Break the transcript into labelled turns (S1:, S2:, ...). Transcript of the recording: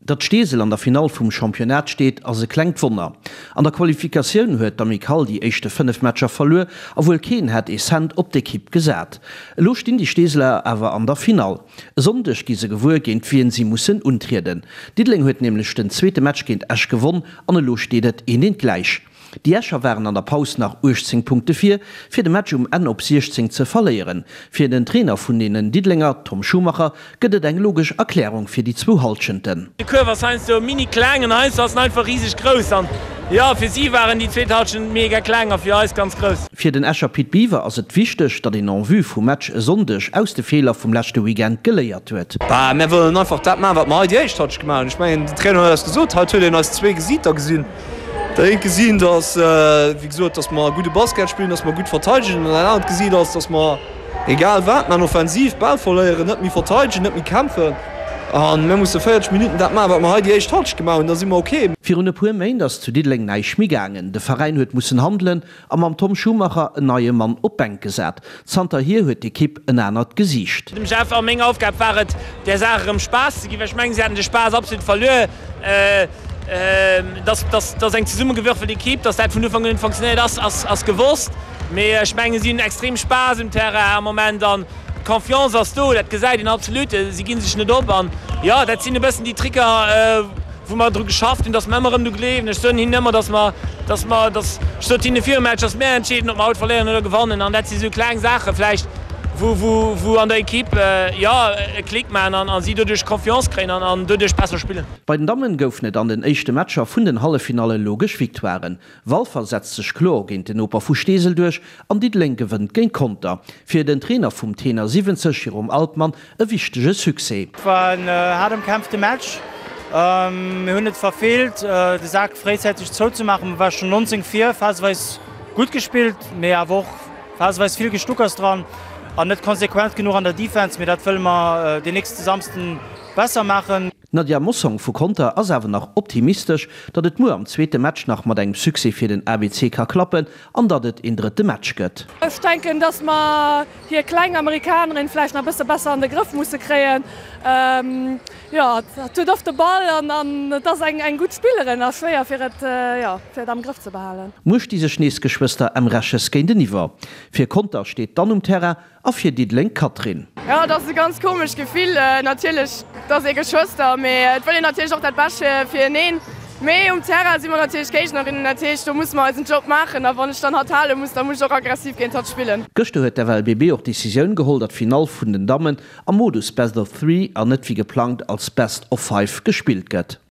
S1: Datt Steesel an der Finall vum Championnat steet, ass e klengt Wonner. An der Qualifikatioun huet d'Amicale déi éischte 5 Matcher verluer a wuel keen hätt ee Cent op d'Ekipp gesat. Elo stinn déi Steeseler awer an der Finall. E Sonndeg gi se gewuer, géint wien si mussen untrieden. Diddeleng huet nämlech den zweete Match géint Esch gewonn an elo steet et eent eent gläich. Déi Escher waren an der Paus nach 18 Punkte vir, fir de Match um Enn op 16 ze verléieren. Fir den Trainer vun deenen Diddelenger, Tom Schumacher, gëtt et eng logesch Erklärung fir déi zwou Hallschenten.
S2: De Kuerf ass heiansdo mini kleng an heiansdo ass en einfach riseg grouss an jo, fir si waren déi zweet Hallschent mega kleng a fir eis ganz grouss.
S1: Fir den Escher Pit Biwer ass et wichteg, datt een en vue vum Match e Sonndeg aus de Feeler vum leschte Weekend geléiert huet.
S3: Bah, mär wëllen einfach dat maachen, wat mer hei déi éischt Hallschent gemaach hunn. Ech mengen, den Trainer huet eis gesot, haut huet een eis zwee Gesiiter gesinn. Dat eent gesinn, dass, wéi gesot, dass mer gudde Basket spillen, dass mer gutt verteidegen. An dat anert Gesiit ass, dass mer, egal wat mer offensiv, d'Bal verléieren, net méi verteidegen, net méi kämpfen. A mir musse 40 Minutten dat maachen, wat mer hei déi éischt Halschent gemaach hunn, da si mer ok.
S1: Virun e puer Méint ass zu Diddeleng näischt méi gaangen. De Veräin huet mussen handelen a mam Tom Schumacher en neie Mann op d'Bänk gesat. Zanterhier huet d'Ekipp en anert Gesiicht.
S2: Dem Jeff a meng Aufgab war et, där Saach erëm Spaass ze ginn, well ech mengen, si haten de Spaass absolut verluer. Dass dass eng zesummegewürfelt Ekipp, dass dat vun Ufank un net funktionéiert ass, ass gewosst. Mee ech mengen, si hunn extrem Spaass um Terrain am Moment an d'Confiance ass do, dat gesäit een absolut. Si gi sech net op an jo, dat sinn e bëssen déi Tricker, wou mer dru geschafft hunn, dass mer ëmmer erëm dru gleewen. Ech soen hinnen ëmmer, dass mer, dass mer, dass, ech sot hinne virum Match, dass mär entscheeden, ob mer haut verléieren oder gewannen. An dat si sou kleng Saache vläicht, wou, wou, wou an der Ekipp, jo, e Klick maachen an a si doduerch Confiance kréien an an doduerch besser spillen.
S1: Bei den Dammen goufen et an den éischte Matcher vun den Halleffinalle logesch Victoiren. Walfer setzt sech kloer géint den Noper vu Steesel duerch an Diddeleng gewënnt géint Conter. Fir den Trainer vum Tenor 70, Jérôme Altmann, e wichtege Succès.
S4: Et war en haart ëmkämpfte Match. Mir hunn et verfeelt, de Sak fréizäiteg zouzemaachen. Mir ware schonn 19 vir, phaseweis gutt gespillt, mee awer och phaseweis vill Gestuckers dran an net konsequent genuch an der Defense. Mee dat wëlle mer den nächste Samsden besser maachen.
S1: D'Nadia Mossong vu Conter ass awer nach optimistesch, datt et muer am zweete Match nach mat engem Succès fir den ABC ka klappen an datt et een drëtte Match gëtt.
S5: Ech denken, datt mer hir kleng Amerikanerin vläicht nach e bësse besser an de Grëff musse kréien. Jo, hatt huet oft de Ball an an et ass eng eng gutt Spillerin a schwéier fir et, jo, fir et am Grëff ze behalen.
S1: Muer sti sech nees d'Geschwëster Emreches géinteniwwer. Fir Conter steet dann um Terrain A fir Diddeleng d'Catherine.
S6: Jo, et ass e ganz komescht Gefill. Natierlech, et ass ee Geschwëster, mee et wëll een natierlech och dat Bescht fir eneen. Mee um Terrain si mer natierlech Géignerinnen, dat heescht, do musse mer eisen Job maachen. A wann ech dann hatt hale muss, da muss ech och aggressiv géint hatt spillen.
S1: Gëschter huet d'FLBB och d'Decisioun geholl, datt d'Finall vun den Dammen am Modus Best of Three an net wéi geplangt als Best of Five gespillt gëtt.